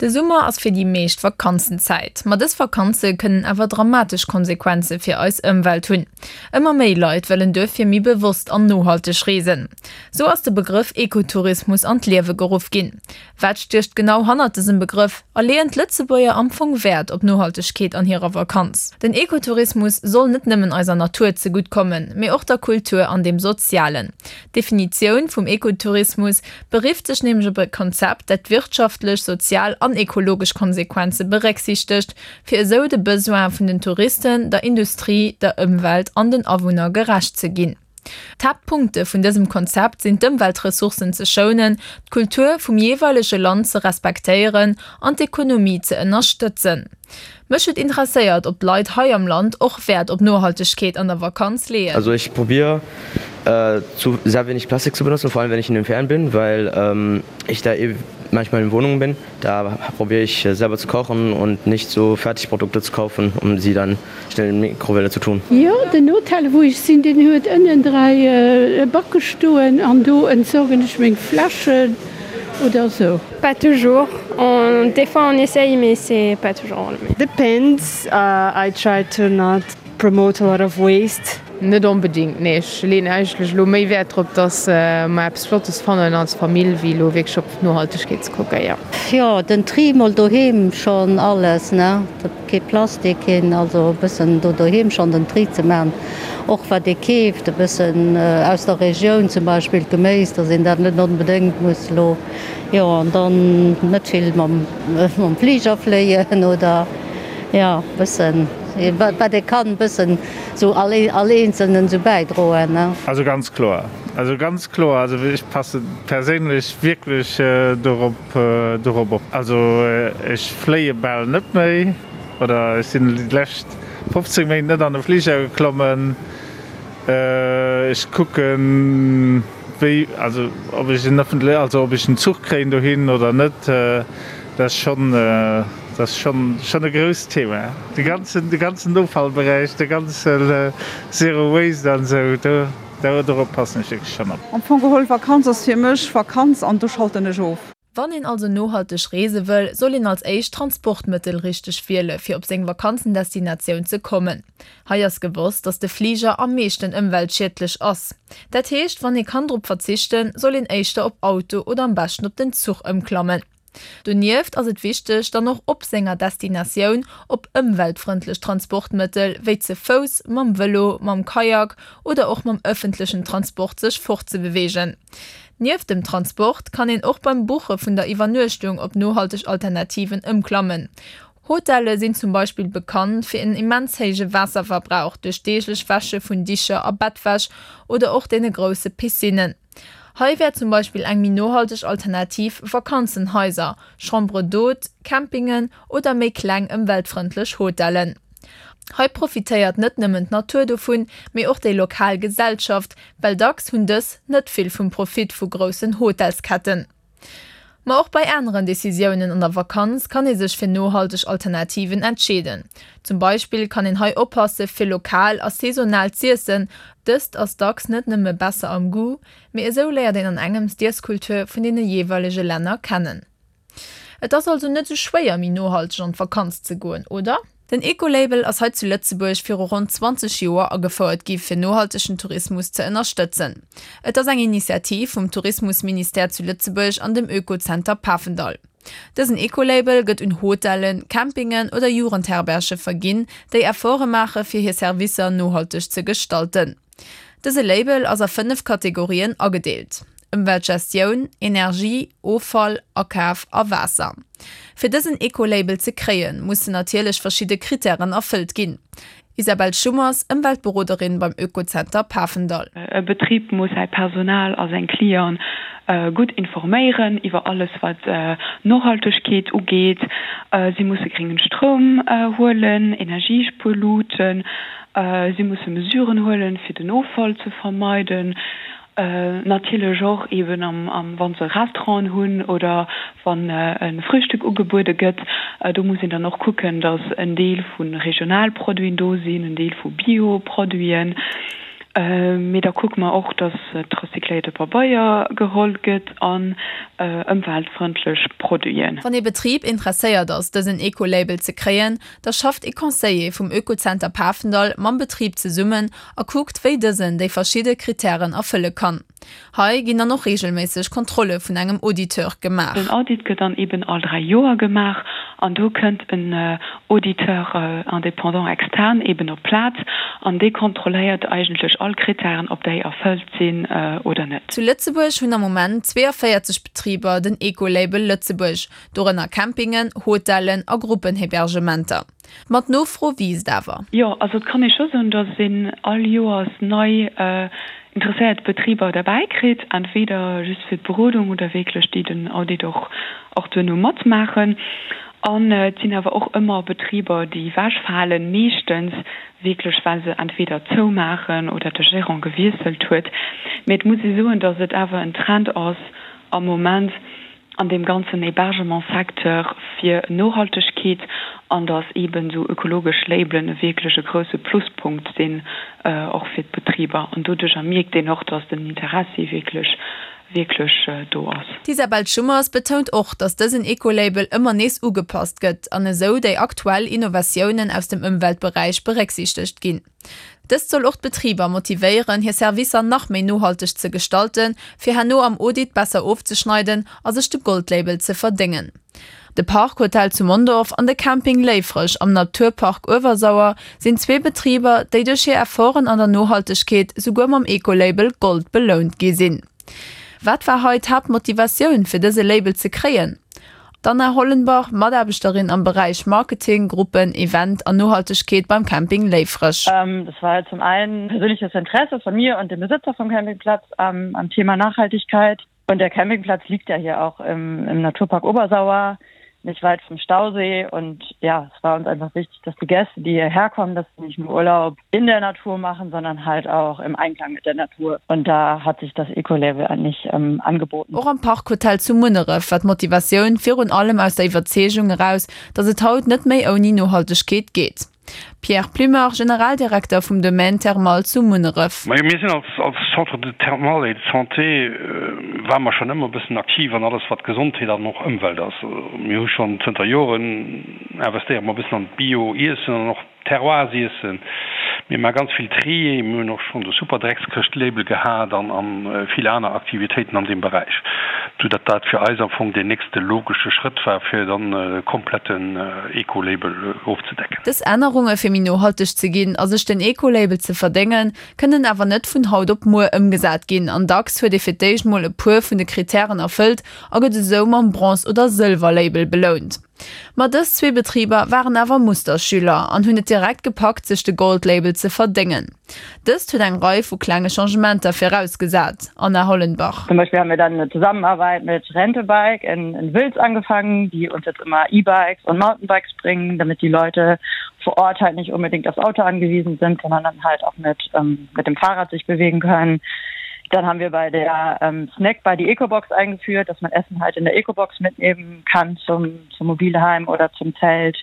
De Summer ass fir déi meescht Vakanzenzäit. Ma dës Vakanze kënnen awer dramatesch Konsequenze fir eis Ëmwelt hunn. Ëmmer méi Leit wëllen duerfir méi bewosst an nohalteg reesen. Sou ass de Begrëff Ekotourismus an d'Liewe geruff ginn. Wat stécht genau hannert dësem Begrëff a leeën d'Lëtzebuerger am Fong Wäert op Nohaltegkeet an hirer Vakanz? Den Ekotourismus soll net nëmmen eiser Natur zegutt kommen, mee och der Kultur an dem Sozialen. D'Definitioun vum Ekotourismus berifft sech nämlech op e Konzept, dat wirtschaftlech, sozial an ekologesch Konsequenze berécksiichtegt, fir esou de Besoine vun den Touristen, der Industrie, der Ëmwelt an den Awunner gerecht ze ginn. D'Haaptpunkte vun dësem Konzept sinn d'Ëmweltressourcen ze schounen, d'Kultur vum jeeweilege Land ze respektéieren an d'Ekonomie ze ënnerstëtzen. Mech huet interesséiert, ob d'Leit hei am Land och Wäert op Nohaltegkeet an der Vakanz leeën. Also ich probier zu sehr wenig Plastik zu benutzen, vor allem wenn ich in den Ferien bin, weil ich da eh manchmal in Wohnungen bin. Da probier ich selber zu kochen und nicht so Fertigprodukte zu kaufen, um sie dann schnell in Mikrowelle zu tun. Jo, den Hotel wou ech sinn, deen huet ënnen 3 Backe stoen an do entsorgen ech meng Fläschen oder sou. Pas toujours, on, des fois on essaye mais c'est pas toujours le. Depends, I try to not promote a lot of waste. Net onbedingt, nee. Ech leeën eigentlech elo méi Wäert drop, dass mer eppes Flottes fannen als Famill, wéi elo wierklech op d'Nohaltegkeet ze kucken, jo. Jo, den Tri mol doheem schon alles ne, kee Plastik, keen, also e bëssen do doheem schon den Tri ze man, och wat ee keeft e bëssen aus der Regioun, zum Beispill d'Geméis, dass een dat net onbedéngt muss elo, jo an dann net vill mam mam Fliger fléien oder jo bëssen wat ee kann bëssen sou all all eenzelnen sou bäidroen ne. Also ganz kloer, also ganz kloer, also ech passe perséinlech wierklech dorop dorop op. Also ech fléie bal net méi oder ech sinn déi lescht 15 Méint net an e Fliger geklommen. Ech kucken wéi, also ob ech en ëffentle, also ob ech en Zuch kréien dohin oder net, dat ass schonn, dat ass schonn, schonn e grousst Thema. De ganzen, de ganzen Offallberäich, de ganze Zero Waste an esou, do, do, dorop passen ech wierklech schonn op. Am Fong geholl, Vakanz ass fir mech Vakanz an do schalten ech of. Wann een also nohalteg reese wëll, soll een als éischt d'Transportmëttel richteg wiele fir op seng Vakanzendestinatioun ze kommen. Hei ass gewosst, dass de Fliger am meeschten ëmweltschiedlech ass. Dat heescht, wann ee kann drop verzichten, soll een éischter op Auto oder am beschten op den Zuch ëmklammen. Donieft ass et wichteg, dann och op senger Destinatioun op ëmweltfrëndlech Transportmëttel wéi ze Fouss, mam Vëlo, mam Kajak oder och mam ëffentlechen Transport sech fortzebeweegen. Nieft dem Transport kann een och beim Buche vun der Iwwernuechtung op nohalteg Alternativen ëmklammen. Hotelle sinn zum Beispill bekannt fir en immens héije Waasserverbrauch duerch deeglech Wäsche vun Dicher a Bettwäsch oder och deene grousse Piscinnen. Hei wär zum Beispill eng méi nohalteg Alternativ Vakanzenhaiser, Chambres d'hôtes, Campingen oder méi kleng ëmweltfrëndlech Hotellen. Hei profitéiert net nëmmen d'Natur dovun, mee och déi lokal Gesellschaft, well dacks hunn dës net vill vum Profit vu groussen Hotelsketten. Ma och bei aneren Decisiounen an der Vakanz kann ee sech fir nohalteg Alternativen entscheeden. Zum Beispill kann een hei oppasse fir lokal a saisonal z'iessen, dëst ass dacks net nëmme besser am Goût, mee esou léiert een an engems d'Iesskultur vun deene jeeweilege Länner kennen. Et ass also net sou schwéier méi nohalteg an d'Vakanz ze goen, oder? Den Ecolabel ass hei zu Lëtzebuerg viru ronn 20 Joer agefouert gi fir nohaltegen Tourismus ze ënnerstëtzen. Et ass eng Initiativ vum Tourismusministère zu Lëtzebuerg an dem Oekozenter Pafendall. Dësen Ecolabel gëtt un Hotellen, Campingen oder Jugendherberge verginn, déi Efforte maache fir hir Servicer nohalteg ze gestalten. Dëse Label ass a 5 Kategorien agedeelt, Ëmweltgestioun, Energie, Offall, Akaf a Waasser. Fir dësen Eco-Label ze kréien, mussen natierlech verschidde Krittären erfëllt ginn. Isabelle Schummers, Ëmweltberoderin beim Oekozenter Pafendall. E Betrib muss säi Personal a seng Clienten gutt informéieren iwwer alles wat Nohaltegkeet ugeet. Si musse gréngen Stroum huelen, Energiespuerluuten, Si musse Mesuren huelen, fir den Offall ze vermeiden. Natierlech och eeben wa se Restauranten hunn oder wann e Frühstück ugebuede gëtt. Do muss een dann och kucken, datt en Deel vu Regionalproduiten do sinn, en Deel vu Bioproduiten. Mee da kucke mer och, dass recycléierte Pabeier geholl gëtt an ëmweltfrëndlech Produiten. Wann ee Betrib interesséiert ass, dësen Eco-Label ze kréien, da schafft ee Conseiller vum Oekozenter Pafendall mam Betrib zesummen a kuckt, wéi dësen déi verschidde Krittären erfëlle kann. Hei ginn dann och reegelméisseg Kontrolle vun engem Auditeur gemaach. Den Audit gëtt dann eben all 3 Joer gemaach an do kënnt en Auditeur indépendant externe eben op d'Plaz an dee kontrolléiert eigentlech all Krittären, ob déi erfëllt sinn oder net. Zu Lëtzebuerg hunn am Moment 42 Betriber den Ecolabel Lëtzebuerg, dorënner Campingen, Hotellen a Gruppenhebergementer. Ma d'Nofro wiisst awer. Jo, also et kann ee scho soen, datt een all Joers nei interesséiert Betriber derbäi kritt, entweder just fir d'Berodung oder wierklech déi den Audit och och duerno matmaachen. An et sinn awer och ëmmer Betriber, déi ewechfalen, meeschtens wierklech well se entweder zoumaachen oder de Gérant gewiesselt huet. Mee et muss ee soen, datt et awer en Trend ass am Moment, an deem ganzen Hébergement-Secteur fir Nohaltegkeet an dass eeben esou ökologesch Labelen e wierklech e grouse Pluspunkt sinn och fir d'Betriber. An doduercher mierkt een och, dass den Interessi wierklech, wierklech do ass. D'Isabelle Schummers betount och, dass dësen Ecolabel ëmmer nees ugepasst gëtt an esou déi aktuell Innovatiounen aus dem Ëmweltberäich berécksiichtegt ginn. Dëst soll och d'Betriber motivéieren, hir Servicer nach méi nohalteg ze gestalten, fir herno am Audit besser ofzeschneiden a sech de Goldlabel ze verdéngen. De Park Hotel zu Mondorf an de Camping Léifreg am Naturpark Uewersauer sinn zwee Betriber, déi duerch hir Efforten an der Nohaltegkeet souguer mam Ecolabel Gold belount gi sinn. Wat war hei d'Haaptmotivatioun, fir dëse Label ze kréien? D'Anna Hollenbach, Mataarbechterin am Beräich Marketing, Gruppen, Event an Nohaltegkeet beim Camping Léifreg. Das war zum einen persönliches Interesse von mir und dem Besitzer vom Campingplatz am, am Thema Nachhaltigkeit. Und der Campingplatz liegt ja hier auch im, im Naturpark Obersauer nicht weit vom Stausee und ja, es war uns einfach wichtig, dass die Gäste, die hierher kommen, dass sie nicht nur Urlaub in der Natur machen, sondern halt auch im Einklang mit der Natur. Und da hat sich das Ecolabel eigentlich ähm, angeboten. Och am Parkhotel zu Munneref war d'Motivatioun virun allem aus der Iwwerzeegung eraus, datt et haut net méi ouni Nohaltegkeet geet. Pierre Plummer, Generaldirekter vum Domaine Thermal zu Munneref. Majo, mir sinn als als Centre de Thermal et de Santé ware mer schonn ëmmer e bëssen aktiv an alles wat Gesondheet an och Ëmwelt ass. Mir hu schonn zënter Joren investéiere mer e bëssen an d'Bio-Iessen an och Terroirs-Iessen. Mir maache ganz vill Trier, mir hunn och schonn de Superdreckskëscht-Label gehat an an vill aner Aktivitéiten an deem Beräich, sou datt dat fir eis am Fong deen nächste logesche Schrëtt war, fir dann e kompletten Eco-Label ofzedecken. Dës Ännerunge fir méi nohalteg ze ginn a sech den Eco-Label ze verdéngen, kënnen awer net vun haut op muer ëmgesat ginn an dacks huet ee fir d'éischt mol e puer vun de Krittären erfëllt a gëtt esou mam Bronze oder Sëlwer-Label belount. Ma dës zwee Betriber waren awer Musterschüler an hunn et direkt gepackt sech de Gold-Label ze verdéngen. Dëst huet eng Rei vu klenge Changementer virausgesat, Anna Hollenbach. Zum Beispill haben wir dann eine Zusammenarbeit mit Rentebike in, in Wiltz angefangen, die uns jetzt immer E-Bikes und Mountainbikes bringen, damit die Leute vor Ort halt nicht unbedingt aufs Auto angewiesen sind, sondern dann halt auch mit, ähm, mit dem Fahrrad sich bewegen können. Dann haben wir bei der ähm, Snack bei die Ecobox eingeführt, dass man Essen halt in der Ecobox mitnehmen kann zum, zum Mobilheim oder zum Zelt.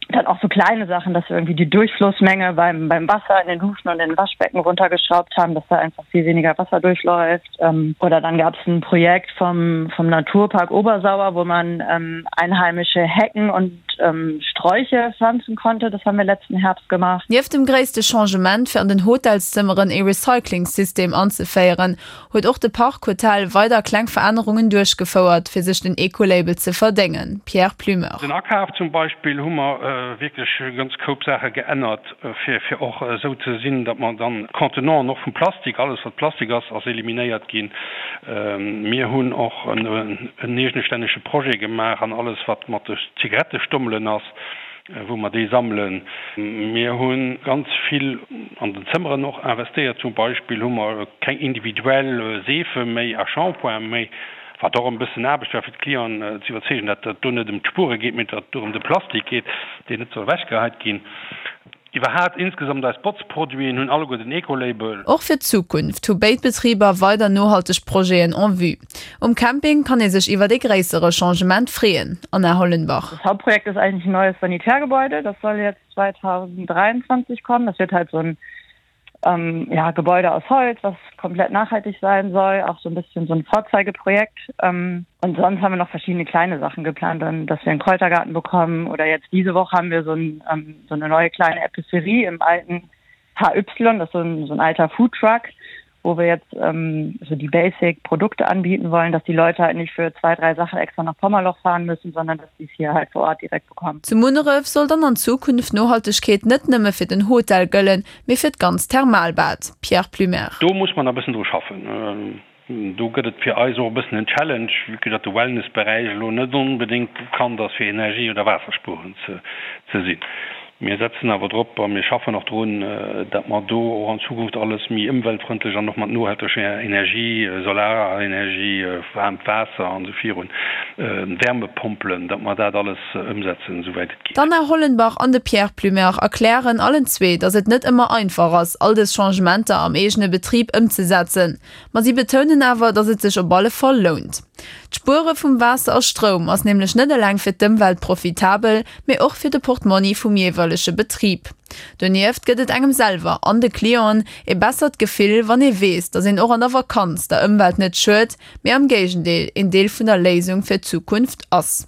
Dann auch so kleine Sachen, dass wir irgendwie die Durchflussmenge beim, beim Wasser in den Duschen und in den Waschbecken runtergeschraubt haben, dass da einfach viel weniger Wasser durchläuft. Ähm, oder dann gab es ein Projekt vom, vom Naturpark Obersauer, wo man ähm, einheimische Hecken und ähm, Sträuche pflanzen konnte. Das haben wir letzten Herbst gemacht. Nieft dem gréisste Changement, fir an den Hotelszëmmeren ee Recyclingssystem anzeféieren, huet och de Park Hotel weider kleng Verännerungen duerchgefouert, fir sech den Ecolabel ze verdéngen. Pierre Plumeur. Den Akaf zum Beispill hu mer wierklech e ganz Koup Saache geännert, fir fir och esou ze sinn, datt mer dann d'Contenanten och vum Plastik, alles wat Plastik ass, ass eliminéiert ginn. Mir hunn och en eegestännege Projet gemaach an alles wat mat de Zigarettestommelen ass, wou mer déi sammelen. Mir hu ganz vill an den Zëmmeren och investéiert. Zum Beispill hu mer keng individuell Seefe méi a Shampoing méi, wat och e bëssen Aarbecht war fir d'Clienten ze iwwerzeegen, datt et do net ëm d'Spuere geet, mee datt et do ëm de Plastik geet, deen net soll ewechgeheit ginn. Iwwerhaat insgesamt eis Botzproduiten hunn alleguer den Ecolabel. Och fir d'Zukunft hu béid Betriber weider nohalteg Projeten en vue. Um Camping kann ee sech iwwert ee gréissere Changement freeën, Anna Hollenbach. Das Hauptprojekt ist eigentlich ein neues Sanitärgebäude, das soll jetzt 2023 kommen. Das wird halt so ein. ähm, ja, Gebäude aus Holz, was komplett nachhaltig sein soll, auch so ein bisschen so ein Vorzeigeprojekt. Ähm, und sonst haben wir noch verschiedene kleine Sachen geplant, dann, dass wir einen Kräutergarten bekommen oder jetzt diese Woche haben wir so, ein, ähm, so eine neue kleine Epicerie im alten HY, das ist so ein, so ein alter Foodtruck, wo wir jetzt ähm, so die Basic-Produkte anbieten wollen, dass die Leute halt nicht für zwei, drei Sachen extra nach Pommerloch fahren müssen, sondern dass sie es hier halt vor Ort direkt bekommen. Zu Munneref soll dann an Zukunft Nohaltegkeet net nëmme fir den Hotel gëllen, mee fir d'ganz Thermalbad. Pierre Plumer. Do muss mer nach e bëssen dru schaffen. Do gëtt et fir eis och e bëssen en Challenge, vue que datt de Wellnessberäich elo net onbedéngt bekannt ass fir Energie oder Waasserspueren ze sinn. Mir setzen awer drop a mir schaffen och drun, datt mer do och an Zukunft alles méi ëmweltfrëndlech an och mat nohalteger Energie, Solarenergie, waarmt Waasser an esou virun, Wärmepompelen, datt mer dat alles ëmsetzen, esouwäit et geet. D'Anna Hollenbach an de Pierre Plumer erklären allen zwee, datt et net ëmmer einfach ass, all dës Changementer am eegene Betrib ëmzesetzen. Ma si betounen awer, datt et sech op alle Fall lount. D'Spuere vum Waasser a Stroum ass nämlech net eleng fir d'Ëmwelt profitabel, mee och fir de Portmonni vum jeeweilege Betrib. Donieft gëtt et engem selwer an de Clienten ee bessert Gefill, wann ee weess, datt een och an der Vakanz der Ëmwelt net schued, mee am Géigendeel een Deel vun der Léisung fir d'Zukunft ass.